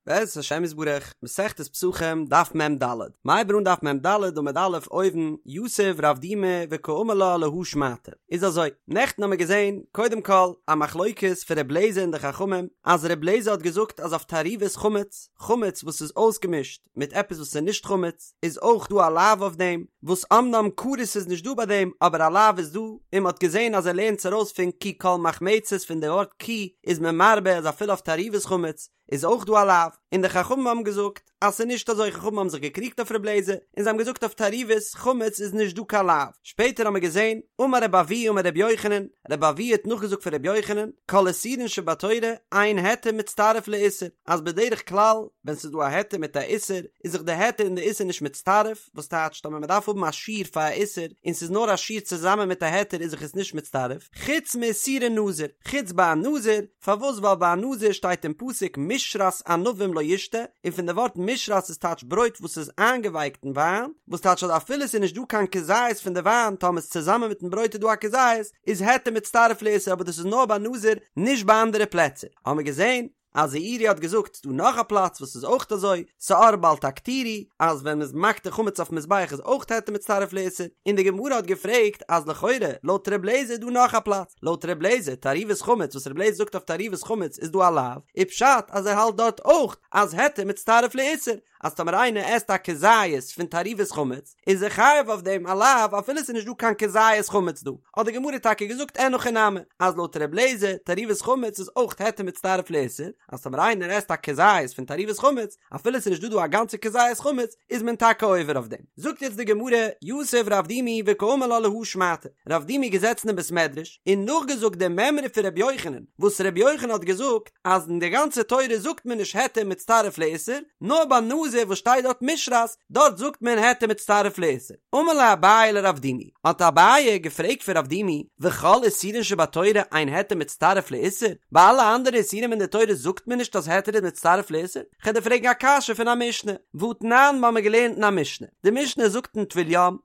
בעזרת השם יתברך, מסכת פסחים, דף מ ד, מ'הייבט אן דף מ ד עמוד א' אויבן, יתיב רב דימי וקאמר לה להא שמעתא. איז אזוי, נעכטן האמיר געזען, קודם כל, א מחלוקת פון ר' לעזער און די חכמים, אז ר' לעזער האט געזאגט אז אויף תערובת חמץ, חמץ וואס איז אויסגעמישט מיט עפעס וואס איז נישט חמץ, איז אויך דא א לאו אויף דעם, וואס אמנם כרת איז נישט דא ביי דעם, אבער א לאו איז דא, און מען האט געזען אז ער לערנט עס ארויס פון כי כל מחמצת פון די ווארט כי איז מען מרבה אז אפילו אויף תערובת חמץ, איז אויך דא א לאו, און די חכמים האבן געזאגט אז ס'איז נישט אזוי, חכמים האבן זיך געקריגט אויף ר' לעזער, און זיי האבן געזאגט אויף תערובת חמץ איז נישט דא קיין לאו, שפעטער האבן מיר געזען, אמר רבי אבהו אמר רבי יוחנן, רבי אבהו האט נאכגעזאגט פון רבי יוחנן, כל איסורין שבתורה אין היתר מצטרף לאיסור, אז בדרך כלל ווען ס'איז דא א היתר מיט א איסור, איז זיך די היתר און די איסור נישט מצטרף, וואס טייטשט אז ווען מ'דארף האבן א שיעור פאר א איסור, און ס'איז נאר א שיעור צוזאמען מיט א היתר איז זיך עס נישט מצטרף, חוץ מאיסורי נזיר, חוץ ביי א נזיר, פארוואס ווייל ביי א נזיר שטייט אין פסוק משרת ענבים לא ישתה, און פון די ווארט משרת איז טייטש ברויט וואס איז איינגעווייקט אין וויין, וואס טייטש אז אפילו ס'איז נישט דא קיין כזית פון די וויין טאמער איז צוזאמען מיטן ברויט איז דא א כזית, איז היתר מצטרף לאיסור אבער דאס איז נאר ביי נזיר נישט ביי אנדערע פלעצער, האמער געזען אז זעירי האט געזאגט ס'דא נאך א פלאץ וואס איז אויך אזוי, שאור בל תקטירו, אז ווען מ'איז מקטיר חמץ אויפן מזבח איז אויך היתר מצטרף לאיסור, און די גמרא האט געפרעגט אז לכאורה לויט ר' לעזער איז דא נאך א פלאץ, לויט ר' לעזער תערובת חמץ וואס ר' לעזער זאגט אויף תערובת חמץ איז דא א לאו, איז פשט אז ער האלט דארט אויך אז היתר מצטרף לאיסור, אז טאמער איינער עסט א כזית פון תערובת חמץ איז ער חייב אויף דעם א לאו אפילו ס'איז נישט דא קיין כזית חמץ דא, האט די גמרא טאקע געזאגט אין הכי נמי אז לויט ר' לעזער תערובת חמץ איז אויך היתר מצטרף לאיסור, אז טאמער איינער עסט א כזית פון תערובת חמץ אפילו ס'איז נישט דא דא א גאנצע כזית חמץ איז מען טאקע עובר אויף דעם. זאגט יעצט די גמרא, יתיב רב דימי וקאמר לה להא שמעתא, רב דימי געזעצן אין בית מדרש און נאכגעזאגט די מימרא פון רבי יוחנן, וואס רבי יוחנן האט געזאגט אז אין די גאנצע תורה זאגט מען נישט היתר מצטרף לאיסור, נאר ביי נזיר וואס שטייט דארט משרת, דארט זאגט מען היתר מצטרף לאיסור. אמר ליה אביי לרב דימי, האט אביי געפרעגט פון רב דימי, וכל איסורין שבתורה אין היתר מצטרף לאיסור? ביי אלע אנדערע איסורים אין די תורה זאגט מען נישט אז היתר איז מצטרף לאיסור? כ'וועל דיר פרעגן א קשיא פון א משנה, והתנן מ'האמיר געלערנט אין א משנה, די משנה זאגט אין טבול יום,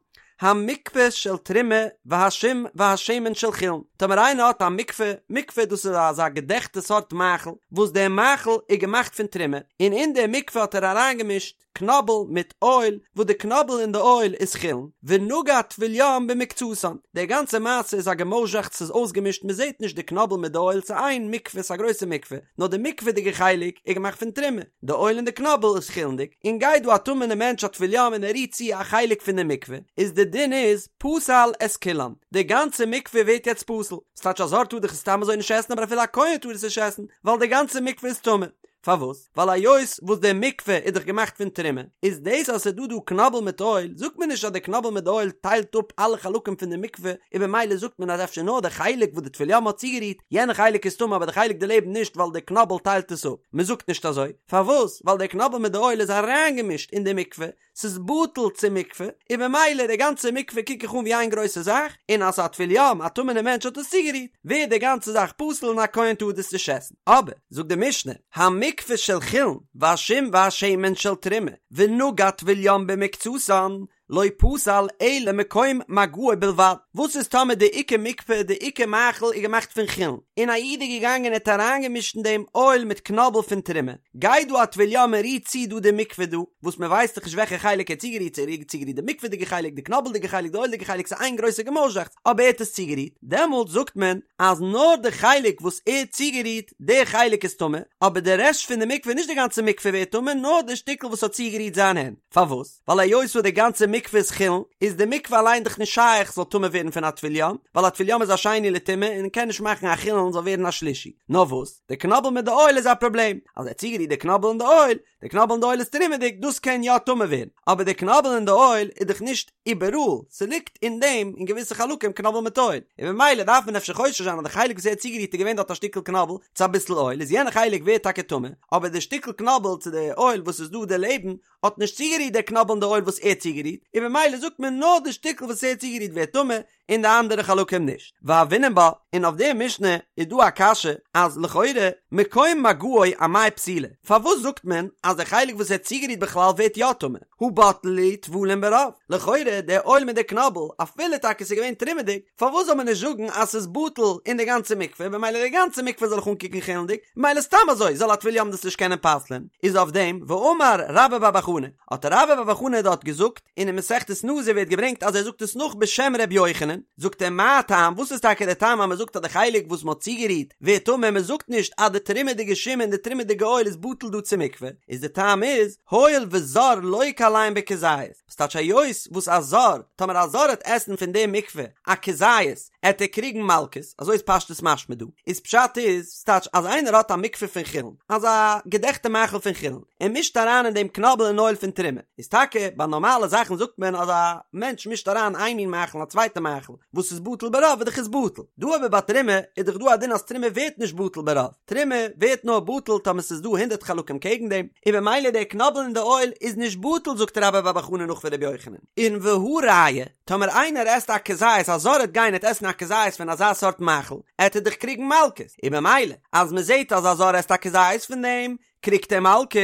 המקפה של תרומה והשום והשמן של חולין, טאמער איינער האט א מקפה, מקפה דאס איז אזא געדעכטע סארט מאכל, וואס דער מאכל איז געמאכט פון תרומה, און אין די מקפה האט ער אריינגעמישט קנאבל מיט אויל, וואס די קנאבל און די אויל איז חולין, ונגע טבול יום במקצתן, די גאנצע מעשה איז א געמויזשעכץ ס'איז אויסגעמישט מ'זעט נישט די קנאבל מיט די אויל ס'איז איין מקפה ס'איז א גרויסע מקפה, נאר די מקפה'דיגע חלק איז געמאכט פון תרומה, די אויל און די קנאבל איז חולין'דיג, און גייט דא א טמא'נע מענטש א טבול יום און ער רירט צו א חלק פון די מקפה, איז די דין איז פסל את כולן, די גאנצע מקפה ווערט יעצט פסול, ס'טייטש א זר טאר דאך עס סתם אזוי נישט עסן אבער אפילו א כהן טאר עס נישט עסן, ווייל די גאנצע מקפה איז טמא. פארוואס? ווייל היות וואס די מקפה איז דאך געמאכט פון תרומה, איז דאס אז ס'איז דא דא קנאבל מיט אויל, זאגט מען נישט אז די קנאבל מיט די אויל טיילט אפ אלע חלקים פון די מקפה, און במילא זאגט מען אז אפשר נאר די חלק וואס די טבול יום האט צוגערירט, יענע חלק איז טמא אבער די חלק דערלעבן נישט ווייל די קנאבל טיילט עס אפ. מען זאגט נישט אזוי. פארוואס? ווייל די קנאבל מיט די אויל איז אריינגעמישט אין די מקפה, ס'איז בטל צום מקפה, און במילא די גאנצע מקפה קוק איך אן ווי איין גרויסע זאך, און אז א טבול יום, א טמא'נע מענטש האט עס צוגערירט, ווערט די גאנצע זאך פסול און א כהן טאר דאס נישט עסן. אבער, זאגט די משנה, המקפה של חולין, והשום והשמן של תרומה, ונגע טבול יום במקצתן, לא פסל אלא מקום מגעו בלבד. וואס איז טאמער די עיקר מקפה, די עיקר מאכל איז געמאכט פון חולין, און א איד איז געגאנגען און האט אריינגעמישט אין דעם אויל מיט קנאבל פון תרומה, גייט דא א טבול יום און רירט צו דא די מקפה דא, וואס מען ווייסט דאך נישט וועלכע חלק ער האט צוגערירט, צו ער האט צוגערירט די מקפה'דיגע חלק, די קנאבלדיגע חלק, די אויל'דיגע חלק, ס'איז איין גרויסע געמויזשעכץ, אבער ער האט עס צוגערירט, דעמאלט זאגט מען אז נאר די חלק וואס ער האט צוגערירט, די חלק איז טמא, אבער די רעשט פון די מקפה, נישט די גאנצע מקפה ווערט טמא, נאר די שטיקל וואס האט צוגערירט זיין הענט. פארוואס? ווייל היות וואס די גאנצע מקפה איז חולין, איז די מקפה אליין דאך נישט שייך זאל טמא ווערן פון א טבול יום, ווייל א טבול יום איז א שני לטומאה און קען נישט מאכן א חולין זאל ווערן א שלישי. נאר וואס? די קנאבל מיט די אויל איז א פראבלעם, אז ער האט צוגערירט די קנאבל און די אויל, די קנאבל און די אויל איז תרומה'דיג, דאס קען יא טמא ווערן, אבער די קנאבל און די אויל איז דאך נישט איבעראל, ס'ליגט אין דעם אין געוויסע חלקים קנאבל מיט אויל, און ממילא דארף מען אפשר חושש זיין אז די חלק וואס ער האט צוגערירט איז געווען דארט א שטיקל קנאבל צו אביסל אויל, איז יענע חלק ווערט טאקע טמא, אבער די שטיקל קנאבל צו די אויל וואס איז דא דערלעבן האט נישט צוגערירט די קנאבל און די אויל וואס ער האט צוגערירט, און ממילא זאגט מען נאר די שטיקל וואס ער האט צוגערירט ווערט טמא, און די אנדערע חלקים נישט. והוינן בה, און אויף די משנה איז דא א קשיא אז לכאורה מקום מגעו אמאי פסילה, פארוואס זאגט מען אז די חלק וואס ער האט צוגערירט בכלל ווערט יא טמא, הא בטלי להו טבולין ברוב, לכאורה די אויל מיט די קנאבל אפילו טאקע ס'איז געווען תרומה'דיג, פארוואס זאל מען נישט זאגן אז ס'איז בטל אין די גאנצע מקווה במילא די גאנצע מקווה זאל איך אנקוקן חולין'דיג, במילא סתם אזוי זאל א טבול יום דאס נישט קענען פסל'ען, איז אויף דעם ואמר רבה בר בר חנה, האט רבה בר בר חנה דארט געזאגט, און אין מסכת נזיר ווערט געברענגט אז ער זאגט עס נאך בשם ר' יוחנן, זאגט ער מה טעם, וואס איז טאקע דער טעם אז מען זאגט אז די חלק וואס מען האט צוגערירט ווערט טמא, מען זאגט נישט אז די תרומה'דיגע שום און די תרומה'דיגע אויל איז בטל דא צו מקווה, איז די טעם איז, הואיל וזר לוקה עליהן בכזית, וואס טייטש היות וואס א זר, טאמער א זר העט עסן פון די מקווה א כזית, עט ער קריגן מלקות, אזוי איז פשטות משמע דא, איז פשט איז, ס'טייטש אז איינער האט א מקווה פון חולין, אזא געדעכטע מאכל פון חולין, ער מישט אריין אין דעם קנאבל און אויל פון תרומה, איז טאקע ביי נארמאלע זאכן זאגט מען אז א מענטש מישט אריין איין מין מאכל אין א צווייטע מאכל וואס איז בטל ברוב איז דאך עס בטל, דא אבער ביי תרומה איז דאך דא א דין אז תרומה ווערט נישט בטל ברוב, תרומה ווערט נאר בטל טאמער ס'איז דא הונדרעט חלקים קעגן דעם, און במילא דער קנאבל און די אויל איז נישט בטל זאגט רבה בר בר חנה נאך פון רבי יוחנן, און והא ראיה, טאמער איינער עסט א כזית א זר עט גיין עט עסן א כזית פון אזא סארט מאכל עט ער דאך קריגן מלקות, און במילא אז מ'זעט אז א זר עסט א כזית פון דעם קריגט ער מלקות,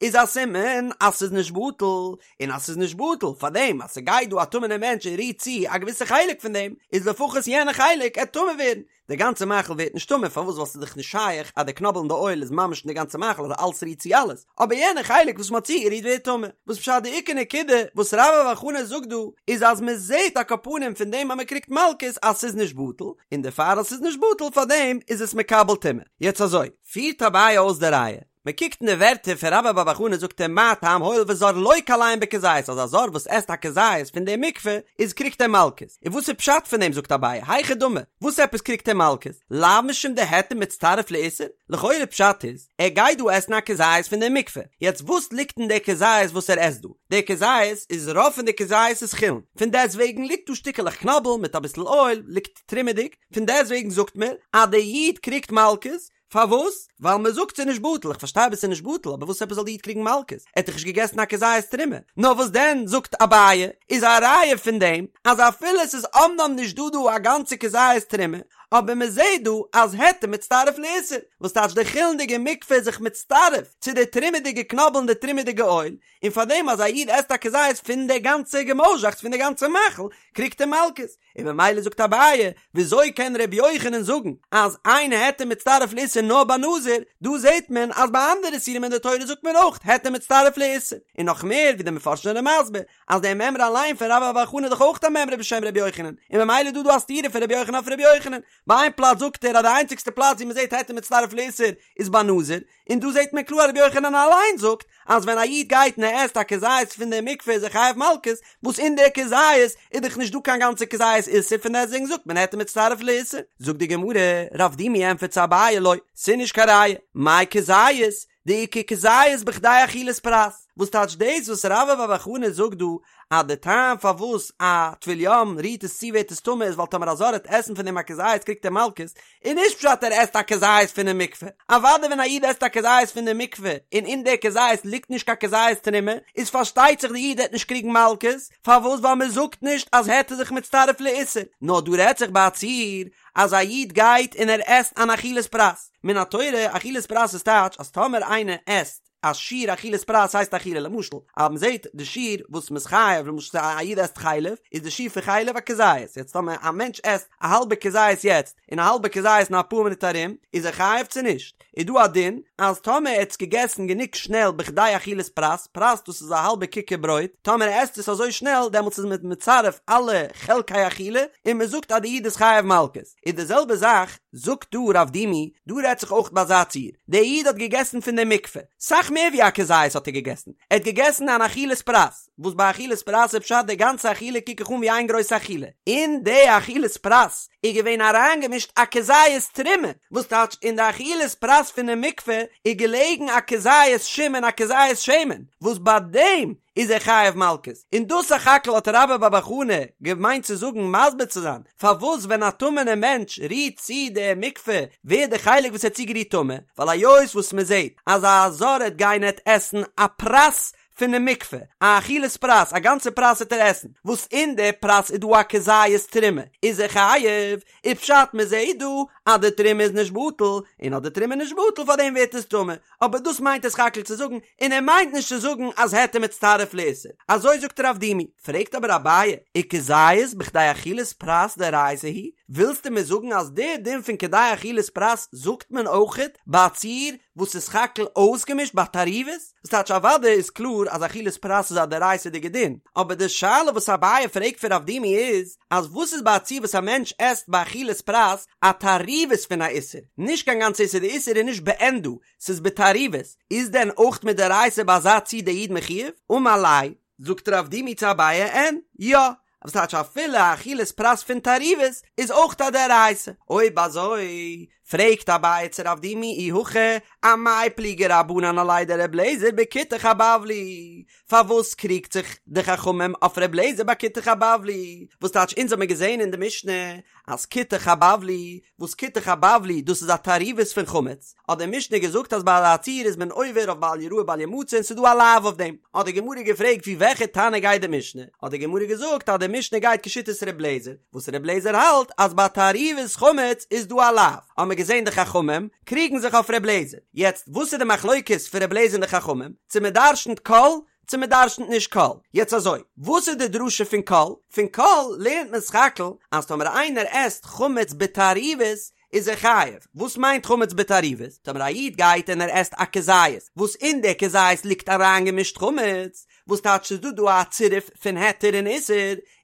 איז א סימן אז ס'איז נישט בטל, און אז ס'איז נישט בטל פאר דעם אז ס'גייט דא א טמא'נער מענטש און רירט צו א געוויסע חלק פון דעם, איז לפחות יענע חלק עט טמא ווערן, די גאנצע מאכל ווערט נישט טמא, פארוואס ווייל ס'איז דאך נישט שייך אז די קנאבל און די אויל איז ממש אין די גאנצע מאכל אז אלס רירט צו אלעס, אבער יענע חלק וואס מ'האט צוגערירט ווערט טמא, וואס פשט די עיקר נקודה וואס רבה בר בר חנה זאגט דא איז אז מ'זעט על כל פנים פון דעם אז מ'קריגט מלקות אז ס'איז נישט בטל, און דערפאר אז ס'איז נישט בטל פארדעם איז עס מקבל טומאה. יעצט אזוי. פירט אביי אויס די ראיה, מען קוקט אין די ווערטער פון רבה בר בר חנה זאגט ער מה טעם הואיל וזר לוקה עליהן בכזית אז א זר וואס עסט א כזית פון די מקווה איז קריגט ער מלקות, און וואס איז פשט פון דעם זאגט אביי היכי דמי וואס עפעס קריגט ער מלקות לאו משום דהיתר מצטרף לאיסור, לכאורה פשט איז ער גייט דא עסן א כזית פון די מקווה, יעצט וואס ליגט אין די כזית וואס ער עסט דא, די כזית איז רוב פון די כזית איז חולין, פון דעסט וועגן ליגט דא שטיקעלעך קנאבל מיט אביסל אויל ליגט תרומה'דיג, פון דעסט וועגן זאגט מען אז די איד קריגט מלקות, פארוואס? ווייל מען זאגט ס'איז נישט בטל, איך פארשטיי אבער ס'איז נישט בטל, אבער וואס עפעס זאל די איד קריגן מלקות? ער האט דאך נישט געגעסן א כזית תרומה. נאר וואס דען זאגט אביי, איז א ראיה פון דעם אז אפילו ס'איז אמנם נישט דא דא א גאנצע כזית תרומה, אבער מען זעט דא אז היתר מצטרף לאיסור, וואס טייטש די חולין'דיגע מקווה איז זיך מצטרף צו די תרומה'דיגע קנאבל און די תרומה'דיגע אויל, און פארדעם אז א איד עסט א כזית פון די גאנצע געמויזשאכץ פון די גאנצע מאכל, קריגט ער מלקות. און ממילא זאגט אביי, וויאזוי קען ר' יוחנן זאגן אז אין היתר מצטרף לאיסור נאר ביי נזיר, דא זעט מען אז ביי אנדערע איסורים אין די תורה זאגט מען אויך היתר מצטרף לאיסור, און נאך מער ווי די מפרשים זענען מסביר אז די מימרא אליין פון רבה בר בר חנה איז דאך אויך א מימרא בשם ר' יוחנן, און ממילא איז דא דא א סתירה פון ר' יוחנן אויף ר' יוחנן, ביי איין פלאץ זאגט ער אז די איינציגסטע פלאץ ווי מען זעט היתר מצטרף לאיסור איז ביי נזיר, און דא זעט מען קלאר רבי יוחנן אליין זאגט אז ווען א איד גייט און ער עסט א כזית פון די מקווה איז ער חייב מלקות, וואס אין די כזית איז דאך נישט דא קיין גאנצע כזית איסור פון דעסטוועגן זאגט מען היתר מצטרף לאיסור. זאגט די גמרא, רב דימי ענטפערט צו אביי לא, ס'איז נישט קיין ראיה, מאי כזית, דאיכא כזית בכדי אכילת פרס, וואס טייטש דאס וואס רבה בר בר חנה זאגט דא אז די טעם פארוואס א טבול יום רירט עס צו ווערט עס טמא איז ווייל טאמער א זר העט עסן פון דעם א כזית קריגט ער מלקות, איז נישט פשט ער עסט א כזית פונעם מקווה, אוודאי ווען א איד עסט א כזית פון די מקווה און אין די כזית ליגט נישט קיין כזית תרומה איז פארשטייט זיך די איד העט נישט קריגן מלקות, פארוואס ווייל מען זאגט נישט אז היתר זיך מצטרף לאיסור, נאר דא רעדט זיך ביי א ציור אז א איד גייט און ער עסט אן אכילת פרס, מן התורה אכילת פרס איז טייטש אז טאמער איינער עסט א שיעור אכילת פרס הייסט אכילה למשל אז מען זעט די שיעור וואס מען איז חייב למשל א איד עסט חלב איז די שיעור פון חלב א כזית יעצט טאמער א מענטש עסט א האלבע כזית יעצט און א האלבע כזית אין אפאר מינוט ארום איז ער חייב צו נישט איז דא א דין אז טאמער ער האט עס געגעסן גענוג שנעל בכדי אכילת פרס פרס דאס איז א האלבע כיכר ברויט טאמער ער עסט עס אזוי שנעל דעמאלטס איז מען מצרף אלע חלקי אכילה און מען זאגט אז די איד איז חייב מלקות. איז די זעלבע זאך זאגט דא רב דימי, דא רעדט זיך אויך ביי אזא ציור, דער איד האט געגעסן פון די מקווה, סאך מער ווי א כזית האט ער געגעסן, ער האט געגעסן אן אכילת פרס, וואס ביי אכילת פרס איז פשט די גאנצע אכילה קוק איך אן ווי איין גרויסע אכילה, אין די אכילת פרס איז געווען אריינגעמישט א כזית תרומה, וואס טייטש אין די אכילת פרס פונעם מקווה איז געלעגן א כזית שום און א כזית שמן, וואס ביי דעם איז ער חייב מלקות, און דאס סך הכל האט רבה בר בר חנה געמיינט צו זאגן מסביר צו זיין פארוואס ווען א טמא'נער מענטש רירט צו די מקווה ווערט די חלק וואס ער האט צוגערירט טמא, ווייל היות וואס מען זעט אז א זר העט גיין עט עסן א פרס. פונעם מקווה, א אכילת פרס, א גאנצע פרס וועט ער עסן, וואס אין די פרס איז דא א כזית תרומה, איז ער חייב, איז פשט מען זעהט דא אז די תרומה איז נישט בטל, און אז די תרומה איז נישט בטל פאר דעם ווערט עס טמא, אבער דאס מיינט ער סך הכל צו זאגן, און ער מיינט נישט צו זאגן אז היתר מצטרף לאיסור, אזוי זאגט רב דימי, פרעגט אבער אביי, וכזית בכדי אכילת פרס דאורייתא הוא, ווילסטו מיר זאגן אז די דין פון כדי אכילת פרס זאגט מען אויכעט ביי א ציור וואס איז סך הכל אויסגעמישט ביי תערובות? וואס טייטש אוודאי איז קלאר אז אכילת פרס איז א דאורייתא'דיגע דין, אבער די שאלה וואס אביי פרעגט פון רב דימי איז, אז וואס איז ביי א ציור וואס א מענטש עסט ביי אכילת פרס א תערובת פון א איסור, נישט קיין גאנצע איסור, די איסור איז נישט בעין דא, ס'איז בתערובת, איז דען אויך מדאורייתא ביי אזא ציור דער איד מחויב? אמר ליה, זאגט רב דימי צו אביי אין, יא, וואס טייטש אפילו א אכילת פרס פון תערובת איז אויך א דאורייתא, אויב אזוי פרעגט אביי צו רב דימי אי הכי אמאי פליגי רבנן עליה דר' אליעזר בכותח הבבלי, פארוואס קריגט זיך די חכמים אויף ר' אליעזר ביי כותח הבבלי, וואס טייטש אונז האמיר געזען אין די משנה אז כותח הבבלי, וואס כותח הבבלי דאס איז א תערובת פון חמץ, האט די משנה געזאגט אז ביי אזא ציור איז מען עובר אויף בל יראה בל ימצא און ס'איז דא א לאו אויף דעם, האט די גמרא געפרעגט ווי וועלכע תנא גייט די משנה, האט די גמרא געזאגט אז די משנה גייט כשיטת ר' אליעזר, וואס ר' אליעזר האלט אז ביי תערובת חמץ איז דא א לאו, האמיר געזען די חכמים קריגן זיך אויף ר' אליעזר, יעצט וואס איז די מחלוקת פון ר' אליעזר און די חכמים, צו מען דרשנ'ט כל צו מען דרשנ'ט נישט כל. יעצט אזוי, וואס איז די דרשה פון כל? פון כל לערנט מען סך הכל אז טאמער איינער עסט חמץ בתערובת איז ער חייב. וואס מיינט חמץ בתערובת? טאמער א איד גייט און ער עסט א כזית, וואס אין די כזית ליגט אריינגעמישט חמץ, וואס טייטש ס'איז דא דא א צירוף פון היתר און איסור,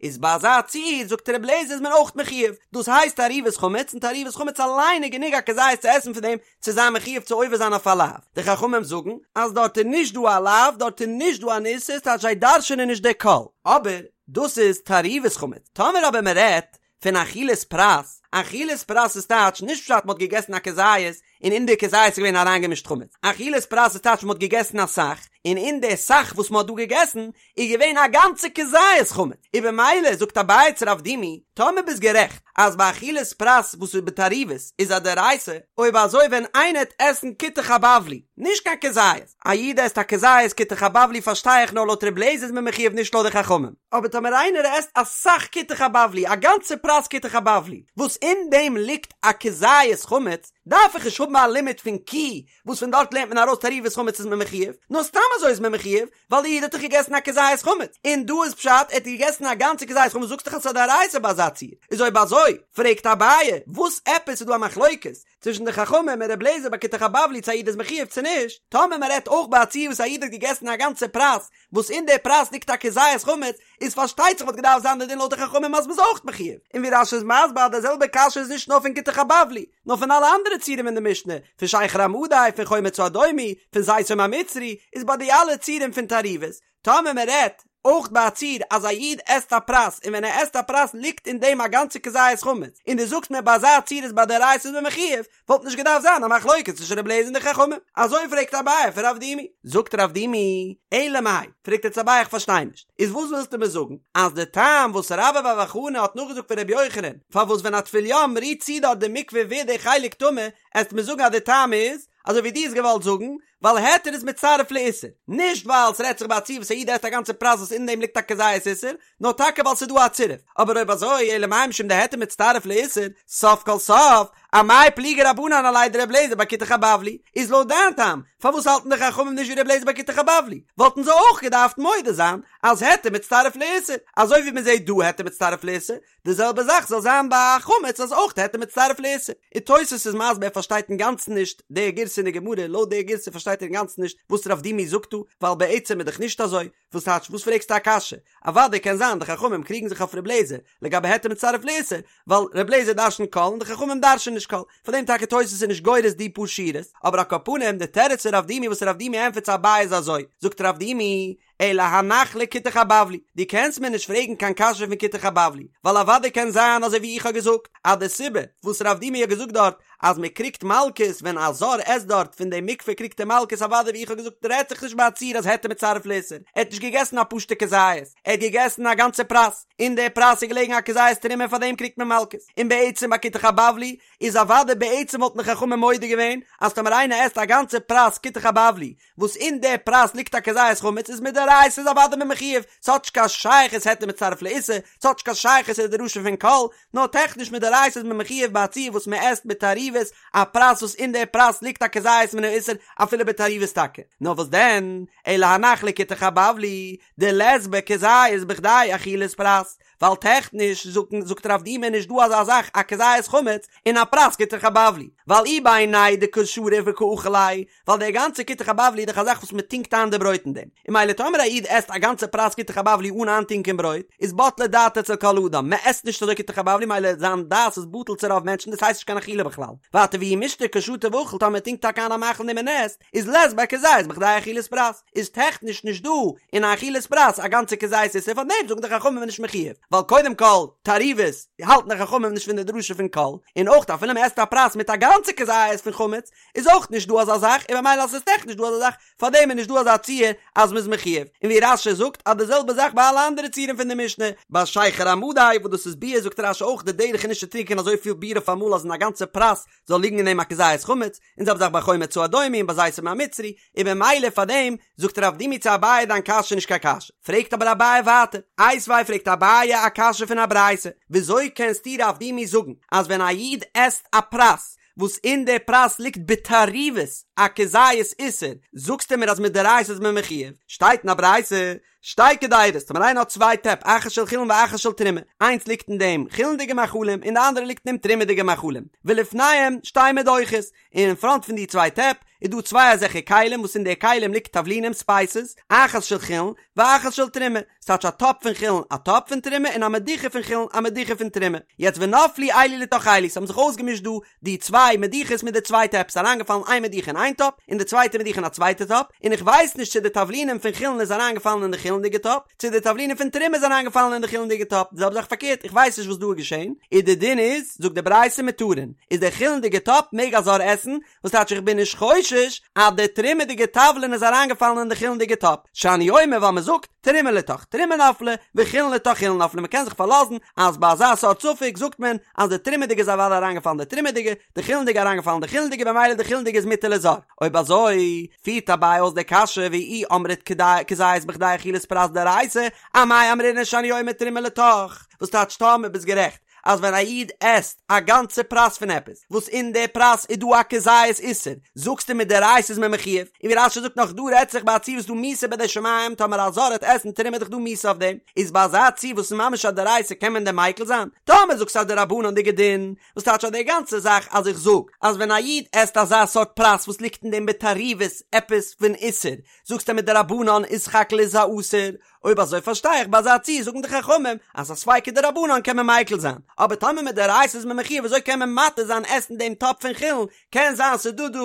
איז ביי אזא ציור זאגט ר' אליעזר איז מען אויך מחויב. דאס הייסט תערובת חמץ, און תערובת חמץ אליין איז גענוג א כזית צו עסן פון דעם צו זיין מחויב צו עובר זיין אויף א לאו. די חכמים זאגן אז דארט איז נישט דא א לאו, דארט איז נישט דא אן איסור, ס'טייטש זיי דרש'ענען נישט די כל. אבער דאס איז תערובת חמץ. טאמער אבער מען רעדט פון אכילת פרס, אכילת פרס איז טייטש נישט פשט מ'האט געגעסן א כזית און אין די כזית איז געווען אריינגעמישט חמץ, אכילת פרס איז טייטש מ'האט געגעסן אסאך און אין די סך וואס מ'האט דא געגעסן איז געווען א גאנצע כזית חמץ, און במילא זאגט אביי צו רב דימי, טאמער ביסט גערעכט אז ביי אכילת פרס וואס איז בתערובת איז א דאורייתא, אויב אזוי ווען איינער העט עסן כותח הבבלי, נישט קיין כזית, א איד עסט א כזית כותח הבבלי פארשטיי איך נאר לויט ר' לעזער איז מען מחויב נישט לויט די חכמים, אבער טאמער איינער עסט אסאך כותח הבבלי א גאנצע פרס כותח הבבלי וואס אין דעם ליגט א כזית חמץ, דארף איך נישט האבן א לימוד פון כי וואס פון דארט לערנט מען ארויס תערובת חמץ איז מען מחויב, נאר סתם אזוי איז מען מחויב, ווייל די איד האט דאך געגעסן א כזית חמץ, און דא איז פשט ער האט געגעסן א גאנצע כזית חמץ זאגסט דאך אז ס'איז א דאורייתא ביי אזא ציור, איז אויב אזוי פרעגט אביי וואס עפעס איז דא א מחלוקת צווישן די חכמים און ר' לעזער ביי כותח הבבלי צו א איד איז מחויב צו נישט, טאמער מען רעדט אויך ביי א ציור וואס א איד האט געגעסן א גאנצע פרס וואס אין די פרס ליגט א כזית חמץ, איז פארשטייט זיך וואלט געדארפט זיין די דין לויט די חכמים אז מ'איז אויך מחויב, און ווי רש"י איז מסביר אז די זעלבע קשיא איז נישט נאר פון כותח הבבלי, נאר פון אלע אנדערע ציורים אין די משנה, פון שכר המדי, פון חומץ האדומי, פון זיתום המצרי, איז ביי די אלע ציורים פון תערובות, טאמער מען רעדט אויך ביי א ציור אז א איד עסט א פרס און ווען ער עסט א פרס ליגט אין דעם א גאנצע כזית חמץ, און דו זאגסט מיר ביי אזא ציור איז ביי דאורייתא איז מען מחויב, וואלט נישט געדארפט זיין א מחלוקת צווישן רבי אליעזר און די חכמים. אזוי פרעגט אביי פון רב דימי. זאגט רב דימי, אלא מאי, פרעגט יעצט אביי איך פארשטיי נישט, איז וואס ווילסטו מיר זאגן, אז די טעם וואס רבה בר בר חנה האט נאכגעזאגט פון רבי יוחנן, פארוואס ווען א טבול יום רירט צו דארט די מקווה ווערט די חלק טמא, עסט מיר זאגן אז די טעם איז, אזוי ווי דו האסט געוואלט זאגן, ווייל היתר איז מצטרף לאיסור, נישט ווייל ס'רעדט זיך ביי א ציור וואס א איד עסט א גאנצע פרס וואס אין דעם ליגט א כזית איסור, נאר טאקע ווייל ס'איז דא א צירוף, אבער אויב אזוי אלא מאי משום דהיתר מצטרף לאיסור, סוף כל סוף, אמאי פליגי רבנן עליה דר' לעזער ביי כותח הבבלי, איז לויט דיין טעם, פארוואס האלטן די חכמים נישט ווי ר' לעזער ביי כותח הבבלי, וואלטן זיי אויך געדארפט מודה זיין אז היתר מצטרף לאיסור, אזוי ווי מ'זעט דא היתר מצטרף לאיסור, די זעלבע זאך זאל זיין ביי א חמץ אז אויך היתר מצטרף לאיסור. און תוס' איז מסביר ער פארשטייט אינגאנצן נישט די גירסא אין די גמרא, לויט די גירסא פארשטייט ער אינגאנצן נישט וואס רב דימי זאגט דא, ווייל בעצם איז דאך נישט אזוי, וואס טייטש וואס פרעגסטו א קשיא? אוודאי קען זיין די חכמים קריגן זיך אויף ר' לעזער לגבי היתר מצטרף לאיסור, ווייל ר' לעזער דרשנ'ט כל און די חכמים דרש'נען נישט כל, פאר דעם טאקע תוס' איז נישט גורס די פאר שורות, אבער על כל פנים די תירוץ פון רב דימי וואס רב דימי ענטפערט צו אביי איז אזוי, זאגט רב דימי, אלא הנח לכותח הבבלי, דו קענסט מיר נישט פרעגן קיין קשיא פון כותח הבבלי, ווייל אוודאי קען זיין אזוי ווי איך האב געזאגט, אז די סיבה וואס רב דימי האט געזאגט דארט אז מען קריגט מלקות ווען א זר עסט דארט פון די מקווה קריגט ער מלקות אוודאי ווי איך האב געזאגט רעדט זיך נישט ביי א ציור אז היתר מצטרף לאיסור, ער האט נישט געגעסן א פשוטע כזית, ער האט געגעסן א גאנצע פרס, אין די פרס איז געלעגן א כזית תרומה פאר דעם קריגט מען מלקות, און בעצם ביי כותח הבבלי איז אוודאי בעצם וואלטן די חכמים מודה געווען אז טאמער איינער עסט א גאנצע פרס כותח הבבלי וואס אין די פרס ליגט א כזית חמץ איז מדאורייתא. מדאורייתא איז אוודאי מען מחויב, ס'האט נישט קיין שייכות היתר מצטרף לאיסור, ס'האט נישט קיין שייכות צו די דרשה פון כל, נאר טעכניש מדאורייתא איז מען מחויב ביי א ציור וואס מען עסט בתערובת א פרס וואס אין די פרס ליגט א כזית מן האיסור אפילו בתערובת טאקע, נאר וואס דען, אלא הנח לכותח הבבלי דלית ביה כזית בכדי אכילת פרס, ווייל טעכניש זאגט רב דימי נישט דא אזא זאך א כזית חמץ אין א פרס כותח הבבלי, ווייל אי בעיניה דקא שריף וקא אכיל ליה, ווייל דער גאנצער כותח הבבלי איז דאך א זאך וואס מען טונקט איין די ברויט אין דעם, און ממילא טאמער א איד עסט א גאנצע פרס כותח הבבלי אן איינטונקען ברויט, איז בטלה דעתו אצל כל אדם, מען עסט נישט אזוי כותח הבבלי ממילא זיין דעת איז בטל צו רוב מענטשן דאס הייסט נישט קיין אכילה בכלל, ווייטער ואי מישתא קא שתי ואכיל טאמער מען טונקט טאקע איין א מאכל אין דעם און עסט, איז לית ביה כזית בכדי אכילת פרס, איז טעכניש נישט דא אין א אכילת פרס א גאנצע כזית איסור פאר דעם זאגן די חכמים מ'איז נישט מחויב, ווייל קודם כל תערובת האלטן די חכמים נישט פון די דרשה פון כל, און אויך אפילו מען עסט א פרס מיט א גאנצע כזית פון חמץ איז אויך נישט דא אזא זאך און במילא אז עס איז טעכניש דא אזא זאך פאר דעם איז נישט דא אזא ציור אז מען איז מחויב, און ווי רש"י זאגט אז די זעלבע זאך ביי אלע אנדערע ציורים פון די משנה, ביי שכר המדי וואס דאס איז ביר זאגט רש"י אויך די דרך איז נישט צו טרינקען אזויפיל ביר אויף אמאל אז אין א גאנצע פרס זאל ליגן אין דעם א כזית חמץ, און זעלבע זאך ביי חומץ האדומי און ביי זיתום המצרי, און במילא פאר דעם זאגט רב דימי צו אביי דיין קשיא איז נישט קיין קשיא, פרעגט אבער אביי ווייטער, איתיביה פרעגט אביי א קשיא פון א ברייתא, וויאזוי קענסטו רב דימי זאגן אז ווען א איד עסט א פרס וואס אין די פרס ליגט בתערובת א כזית איסור, זאגסטו מיר אז מדאורייתא איז מען מחויב, שטייט אין א ברייתא שתי קדירות, טאמער איינער האט צוויי טעפ, אחת של חולין ואחת של תרומה, איינס ליגט אין דעם חולין'דיגע מאכלים און די אנדערע ליגט אין דעם תרומה'דיגע מאכלים, ולפניהם שתי מדוכות, און אין פראנט פון די צוויי טעפ איז דא צוויי אזעלכע כלים וואס אין די כלים ליגט תבלינים ספייסעס, אחת של חולין ואחת של תרומה, ס'טייטש א טאפ פון חולין א טאפ פון תרומה און א מדוכה פון חולין א מדוכה פון תרומה, יעצט ונפלו אלו לתוך אלו, ס'האבן זיך אויסגעמישט דא די צוויי מדוכות מיט די צוויי טעפ, ס'איז אריינגעפאלן איין מדוכה אין איין טאפ, און די צווייטע מדוכה אין א צווייטע טאפ, און איך ווייס נישט צו די תבלינים פון חולין איז אריינגעפאלן אין די חולין'דיגע טאפ, צו די תבלינים פון תרומה איז אריינגעפאלן אין די חולין'דיגע טאפ, די זעלבע זאך פארקערט, איך ווייס נישט וואס דא איז געשען, און די דין איז, זאגט די ברייתא מותרין, איז די חולין'דיגע טאפ מעג א זר עסן, וואס טייטש איך בין נישט חושש אז די תרומה'דיגע תבלין איז אריינגעפאלן אין די חולין'דיגע טאפ, שאני אומר ווייל מ'זאגט, תרומה לתוך תרומה נפלה, וחולין לתוך חולין נפלה, מ'קען זיך פארלאזן אז ביי אזא סארט ספק זאגט מען אז די תרומה'דיגע איז אוודאי אריינגעפאלן די תרומה'דיגע, די חולין'דיגע אריינגעפאלן די חולין'דיגע במילא די חולין'דיגע איז מותר לזר. אויב אזוי, פירט אביי אויס די קשיא ואי אמרת כזית בכדי אכילת פרס דאורייתא, אמאי אמרינן שאני אומר תרומה לתוך, וואס טייטש טאמער ביסט גערעכט אז ווען א איד עסט א גאנצע פרס פון עפעס וואס אין די פרס איז דא א כזית איסור, זאגסטו מדאורייתא איז מען מחויב, און ווי רש"י זאגט נאך דא רעדט זיך ביי א ציור וואס דא מיתה בידי שמים טאמער א זר העט עסן תרומה איז דאך דא מיתה אויף דעם, איז ביי אזא ציור וואס איז ממש א דאורייתא קען מען דען מיקל זיין? טאמער זאגסטו א דרבנן'דיגע דין, וואס טייטש אז די גאנצע זאך אז איך זאג אז ווען א איד עסט אזא סארט פרס וואס ליגט אין דעם בתערובת עפעס פון איסור, זאגסטו מדרבנן איז סך הכל איז א אסור, אויב אזוי פארשטיי איך ביי אזא ציור זאגן די חכמים אז א ספיקא דרבנן קען מען מיקל זיין, אבער טאמער מדאורייתא איז מען מחויב וויאזוי קען מען מתיר זיין עסן דעם טאפ פון חולין, קען זיין ס'איז דא דא